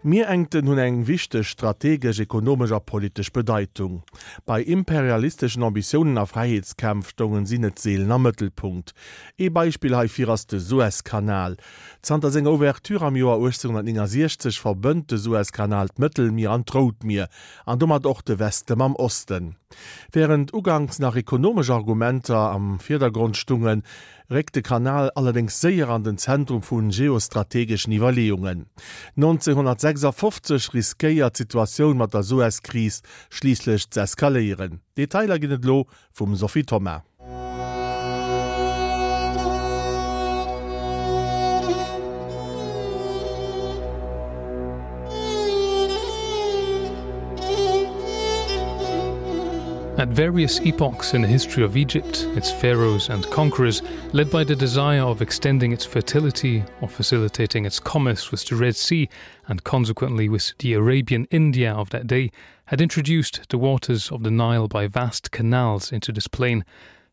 D'Mierengten hunn eng wichteg strategesch, ekonomesch a politesch Bedeitung. Bei imperialisteschen Ambitiounen a Fräiheetskämpf stoungen si net seelen am Mëttelpunkt. Ee Beispill heifir ass de Suezkanal. Zanter senger Ouverture am Joer 1869 verbënnt de Suezkanal d'Mëttelmier an d'Rout Mier, an domat och de Weste mam Osten. Wärend uganks nach ekonomesch Argumenter am Virdergrond stungen, réckt de Kanal allerdéngs séier an den Zentrum vu geostrategeschen Iwwerleeungen. 1956 riskéiert d'Situatioun mat der Suez-Kris schliisslech z'eskaléieren. Detailer ginn et elo vum Sophie Thoma. At various epochs in the history of Egypt, its pharaohs and conquerors, led by the desire of extending its fertility or facilitating its commerce with the Red Sea and consequently with the Arabian India of that day, had introduced the waters of the Nile by vast canals into this plain.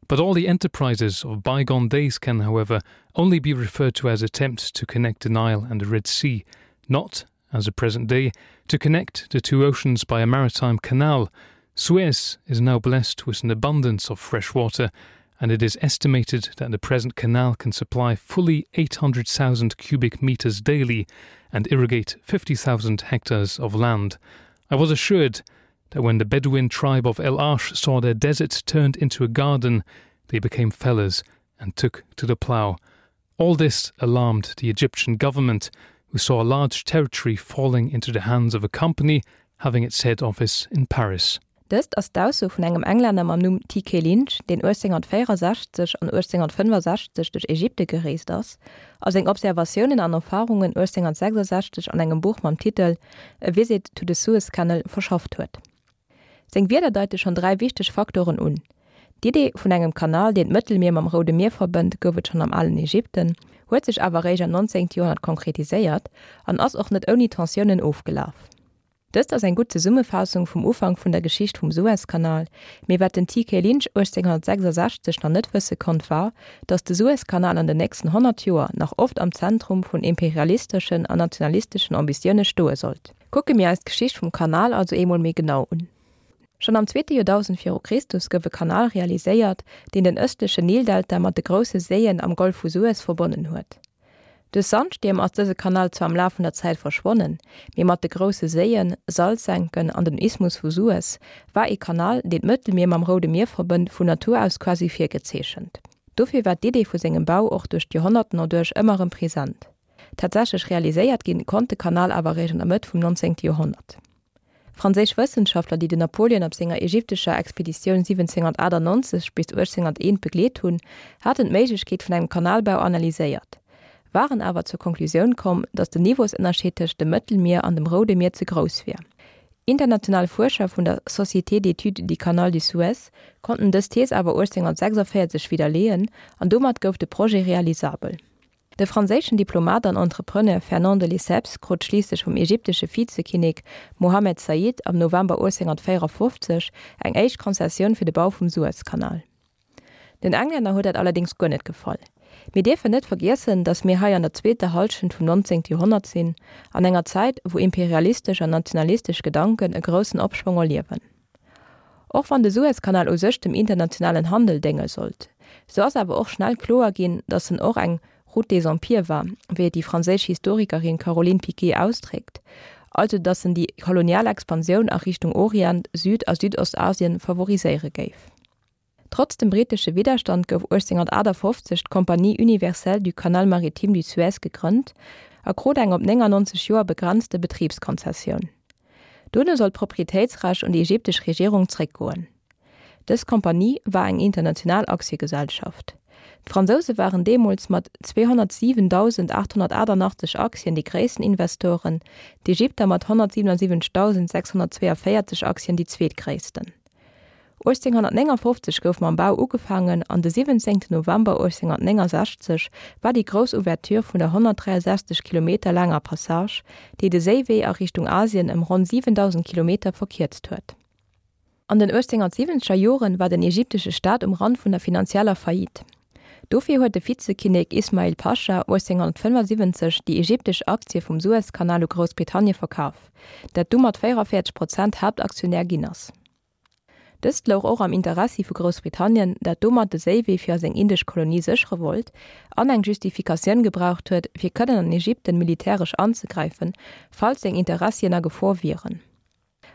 But all the enterprises of bygone days can, however, only be referred to as attempts to connect the Nile and the Red Sea, not, as the present day, to connect the two oceans by a maritime canal. Suez is now blessed with an abundance of fresh water, and it is estimated that the present canal can supply fully 800,000 cubic meters daily and irrigate 50,000 hectares of land. I was assured that when the Bedouin tribe of El Arsh saw their desert turned into a garden, they became fellows and took to the plough. All this alarmed the Egyptian government, who saw a large territory falling into the hands of a company having its head office in Paris. Dëst ass d'Ausso vun engem Englänner mam Numm TK. Lynch, deen 1864 an 1865 duerch Ägypte gereest ass a seng Observatiounen an Erfarungen 1866 an engem Buch mam Titel A Visit to the Suez Canal verschafft huet. Seng Wierder deite schonn 3 wichteg Faktoren un, D'Idee vun engem Kanal, deen d'Mëttelmier mam Roude Mier verbënnt, gouf et schonn am alen Ägypten, huet sech awer eréischt am 19. Joerhonnert konkretiséiert an ass och net ouni Tensiounen ofgelaf. Dëst ass eng gutt Zesummefaassung vum Ufank vun der Geschicht vum Suezkanal, mee wat den TK. Lynch 1866 nach net wësse konnt war, datt de Suezkanal an den nächsten 100 Joer nach oft am Zentrum vun imperialisteschen an nationalisteschen Ambitioune stoe sollt. Kucke mir eis d'Geschicht vum Kanal also eemol méi genau un. Schonn am zweete Joerdausend viru Christus gouf e Kanal realiséiert, deen den ëstlechen Nildelta mat de grousse Séien am Golf vu Suez verbonnen huet. Duerch Sandstierm ass dëse Kanal zwar am Laf vun der Zäit verschwonnen, mee mat de grousse Séien, Salzsenken an dem Isthmus vu Suez war ee Kanal, deen d'Mëttelmier mam Roude Mier verbënnt, vun Natur aus quasi virgezeechent. Dofir war d'Idee vu sengem Bau och duerch d'Joerhonnerten erduerch ëmmer erëm present. Tatsächlech realiséiert ginn, konnt de Kanal awer eréischt an der Mëtt vum 19. Joerhonnert. Franséisch Wëssenschaftler, déi den Napoleon op senger ägyptescher Expeditioun 1798 bis 1801 begleet hunn, haten d'Méiglechkeet vun engem Kanalbau analyséiert, waren awer zur Konklusioun komm, datt den Niveausënnerscheed tëscht dem Mëttelmier an dem Roude Mier ze grouss wier. International Fuerscher vun der Société d'études du Canal du Suez konnten dës Thees awer 1846 widderleeën an domat gouf de Projet realisabel. De franséischen Diplomat an Entrepreneur Fernand de Lesseps krut schliisslech vum ägyptesche Vizekinnek Mohammed Said am November 1854 eng éischt Konzessioun fir de Bau vum Suezkanal. Den Englänner huet dat allerdéngs guer net gefall. Mir dierfen net vergiessen, datt mir hei an der zweeter Hallschent vum 19. Joerhonnert sinn, an enger Zäit, wou imperialistesch an nationalistesch Gedanken e groussen Opschwong erliewen. Och wann de Suezkanal u sech dem internationalen Handel dénge sollt, sou ass awer och schnell kloer ginn, datt en och eng Route des empires war, wéi et déi franséisch Historikerin Caroline Piqué ausdréckt, also datt en déi kolonial Expansioun a Richtung Orient, Süd a Südostasien favoriséiere géif. Trotz dem brittesche Widderstand gouf 1858 d'Compagnie universelle du Canal maritime du Suez gegrënnt a krut eng op 99 Joer begrenzte Betribskonzessioun. Dono soll d'Proprietéitsrecht un déi ägyptesch Regierung zréckgoen. Dës Compagnie war eng international Aktiegesellschaft. D'Fransouse waren deemools mat 207.888 Aktien déi gréissten Investoren, d'Ägypter mat 177.642 Aktien déi zweetgréissten. 1859 gouf mam Bau ugefaangen an de 17 November 1869 war déi grouss Ouverture vun der 163 Kilometer laanger Passage, déi de Séiwee a Richtung Asien ëm ronn 7.000 Kilometer verkierzt huet. An den 1870er Joren war den ägyptesche Staat um Rand vun der finanzieller Faillite. Dofir huet de Vizekinnek Ismail Pascha 1875 déi egyptesch Aktie vum Suezkanal u Groussbritannie verkaf, dat du mat 44 Prozent Haaptaktionär ginn ass. Dëst louch och am Interessi vu Groussbritannien, dat domat de Séiwee fir a seng indesch Kolonie séchere wollt an eng Justifikatioun gebraucht huet, fir kënnen an Egypten militäresch anzegräifen, falls seng Interessien a Gefor wieren.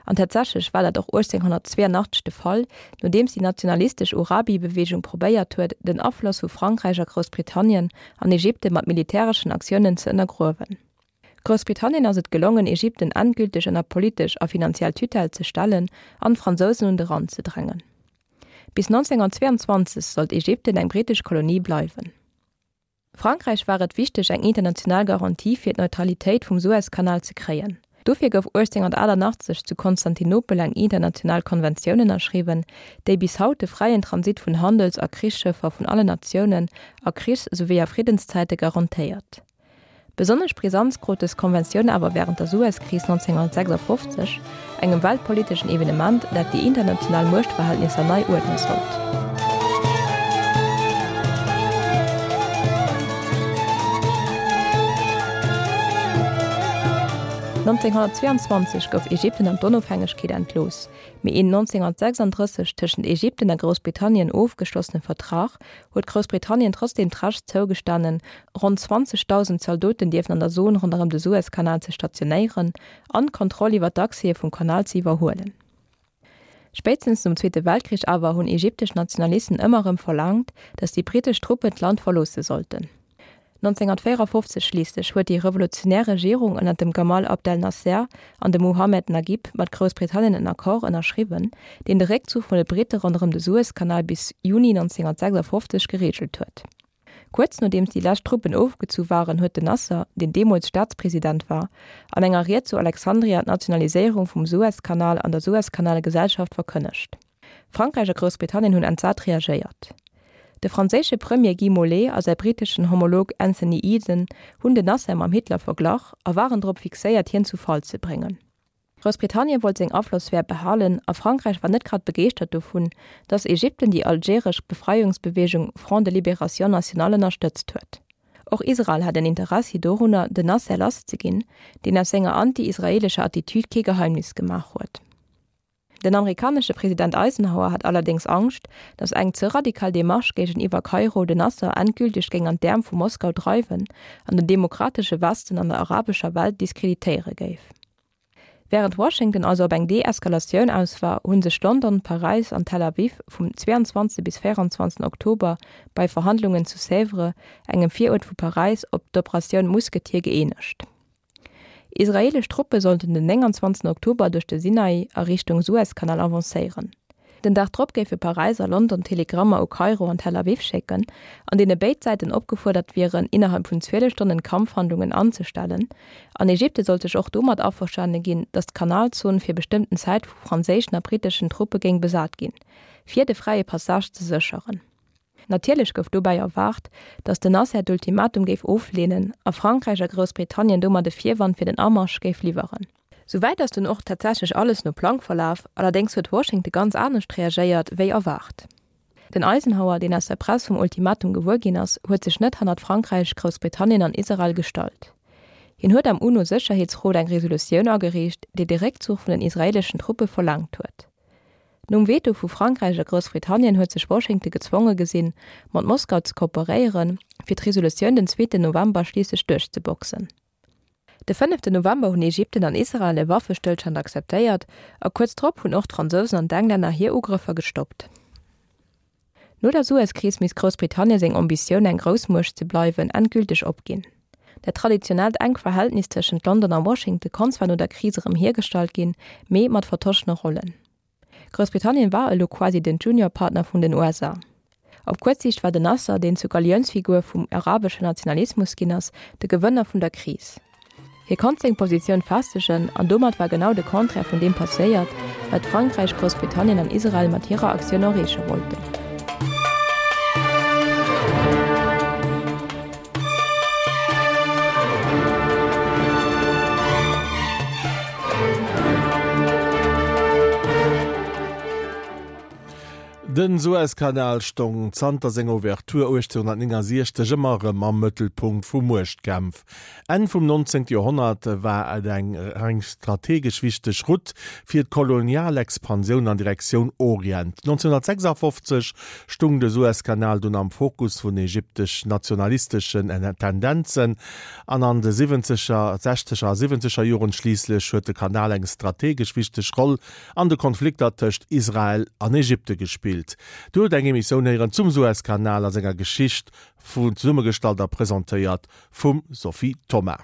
An tatsächlech war dat och 1882 de Fall, nodeems déi nationalistesch Urabi-Beweegung probéiert huet, den Afloss vu Frankräich a Groussbritannien an Egypten mat militäreschen Aktiounen ze ënnergruewen. Groussbritannien ass et gelongen, Egypten endgülteg ënner politesch a finanziell Tutelle ze stellen an d'Fransousen un de Rand ze drängen. Bis 1922 sollt Egypten eng britesch Kolonie bleiwen. Frankräich war et wichteg, eng international Garantie fir d'Neutralitéit vum Suezkanal ze kréien. Dofir gouf 1888 zu Konstantinopel eng international Konventioun ënnerschriwwen, déi bis haut de fräien Transit vun Handels a Krichsschëffer vun allen Natiounen a Krichs souwéi a Friddенszäite garantéiert. Besonnesch Brisanz krut dës Konventioun awer wärend der Suezkris 1956, engem weltpoliteschen Evenement, dat déi international Muechtverhältnisser nei uerdne sollt. 1922 gouf Ägypten an d'Onofhängegkeet entlooss, mee een 1936 tëschent Ägypten a Groussbritannien ofgeschlossene Vertrag huet Groussbritannien trotzdeem d'Recht zougestanen, ronn 20.000 Zaldoten dierfen an der Zon ronderëm de Suezkanal ze stationéieren an d'Kontroll iwwer d'Accèse vum Kanal ze iwwerhuelen. Spéitstens nom Zweete Weltkrich awer hunn egyptesch Nationalisten ëmmer erëm verlaangt, datt déi britesch Truppen d'Land verloosse sollten. 1954 schliisslech huet déi revolutionär Regierung ënner dem Gamal Abdel Nasser an dem Mohammed Naguib mat Groussbritannien en Accord ënnerschriwwen, deen de Réckzuch vun de Britte ronderëm de Suezkanal bis Juni 1956 gereegelt huet. Kuerz nodeems déi lescht Truppen ofgezu waren, huet den Nasser, deen deemools Staatspresident war, an enger Ried zu Alexandria d'Nationaliséierung vum Suezkanal an der Suezkanalgesellschaft verkënnegt. Frankräich a Groussbritannien hunn entsat reagéiert. De franséische Premier Guy Mollet a säi briteschen Homolog Anthony Eden hunn den Nasser mam Hitler verglach a waren drop fixéiert hien zu Fall ze bréngen. Groussbritannien wollt seng Aflossphär behalen a Frankräich war net grad begeeschtert dovun, datt Egypten déi algeresch Befreiungsbeweegung Front de Libération Nationale ënnerstëtzt huet. Och Israel hat en Interessi dorunner, den Nasser lass ze ginn, deen aus senger anti-israeelescher Attitüd kee Geheimnis gemaach huet. Den amerikanesche President Eisenhower hat allerdéngs Angscht, datt eng ze radikal Demarche géigeniwwer Kairo den Nasser endgülteg géing an d'Äerm vu Moskau dreiwen an den demokratesche Westen an der arabescher Welt diskreditéiere géif. Wärend Washington also op eng Deeskalatioun aus war, hu sech London, Paräis an Tel Aviv vum 22 bis 24 Oktober bei Verhandlungen zu Sèvres, engem Viruert vu Paräis, op d'Operatioun Musketier gëeenegt. Israeelesch Truppe sollten den 29 Oktober duerch de Sinai a Richtung Suezkanal avancéieren. Den Dag drop géife Paräis a London Telegrammer u Kairo an Tel Aviv schécken, an deene béid Säiten opgefuerdert wieren, innerhalb vun 12 Stonnen d'Kampfhandlungen anzestellen, an Ägypte sollt sech och domat averstane ginn, datt d'Kanalzon fir bestëmmten Zäit vu franséischen a briteschen Truppe géing besat ginn, fir de fräie Passage ze sécheren. Natierlech gouf dobäi erwaart, datt den Nasser d'Ultimatum géif ofleenen a Frankräich a Groussbritannien domat e Virwand fir den Amarsch géif liwweren. Souwäit ass dunn och tatsächlech alles no Plang verlaf, allerdéngs huet Washington ganz anescht reagéiert wéi erwaart. Den Eisenhower, deen aus der Press vum Ultimatum gewuer ginn ass, huet sech net hannert Frankräich, Groussbritannien an Israel gestallt. Hien huet am UNO-Sécherheetsrot eng Resolutioun agereecht, déi de Réckzuch vun den israeeleschen Truppe verlaangt huet. Nom Veto vu Frankräich a Groussbritannien huet sech Washington gezwonge gesinn, mat Moskau ze kooperéieren, fir d'Resolutioun den zweeten November schliisslech duerchzeboxen. De fënneften November hunn Ägypten an Israel e Waffestëllstand akzeptéiert a kuerz drop hunn och d'Fransousen an d'Englänner hir Ugrëffer gestoppt. No der Suezkris misst Groussbritannien seng Ambitioun eng Groussmuecht ze bleiwen endgülteg opginn. Dat traditionellt enk Verhältnis tëschent London a Washington konnt zwar no der Kris erëm hiergestallt ginn, mee mat vertoschene Rollen. Groussbritannien war elo quasi den Juniorpartner vun den USA. Op kuerz Siicht war den Nasser, deen zur Galiounsfigur vum arabeschen Nationalismus ginn ass, de Gewënner vun der Kris. Hie konnt seng Positioun festegen an domat war genau de Contraire vun deem passéiert, wat Frankräich, Groussbritannien an Israel mat hirer Aktioun erreeche wollten. Den Suezkanal stong zanter senger Ouverture 1869 ëmmer erëm am Mëttelpunkt vu Muechtkämpf. Enn vum 19. Joerhonnert war et eng eng strategesch wichteg Route fir d'Kolonialexpansioun an Direktioun Orient. 1956 stung de Suezkanal dunn am Fokus vun ägyptesch-nationalisteschen Tendenzen an an de siwwenzeger, sechzeger a siwwenzeger Joren schliisslech huet de Kanal eng strategesch wichteg Roll an de Konflikter tëscht Israel an Ägypte gespillt. Dir hutt eng Emissioun héieren zum Suezkanal a senger Geschicht, zesummegestallt a presentéiert vum Sophie Thoma.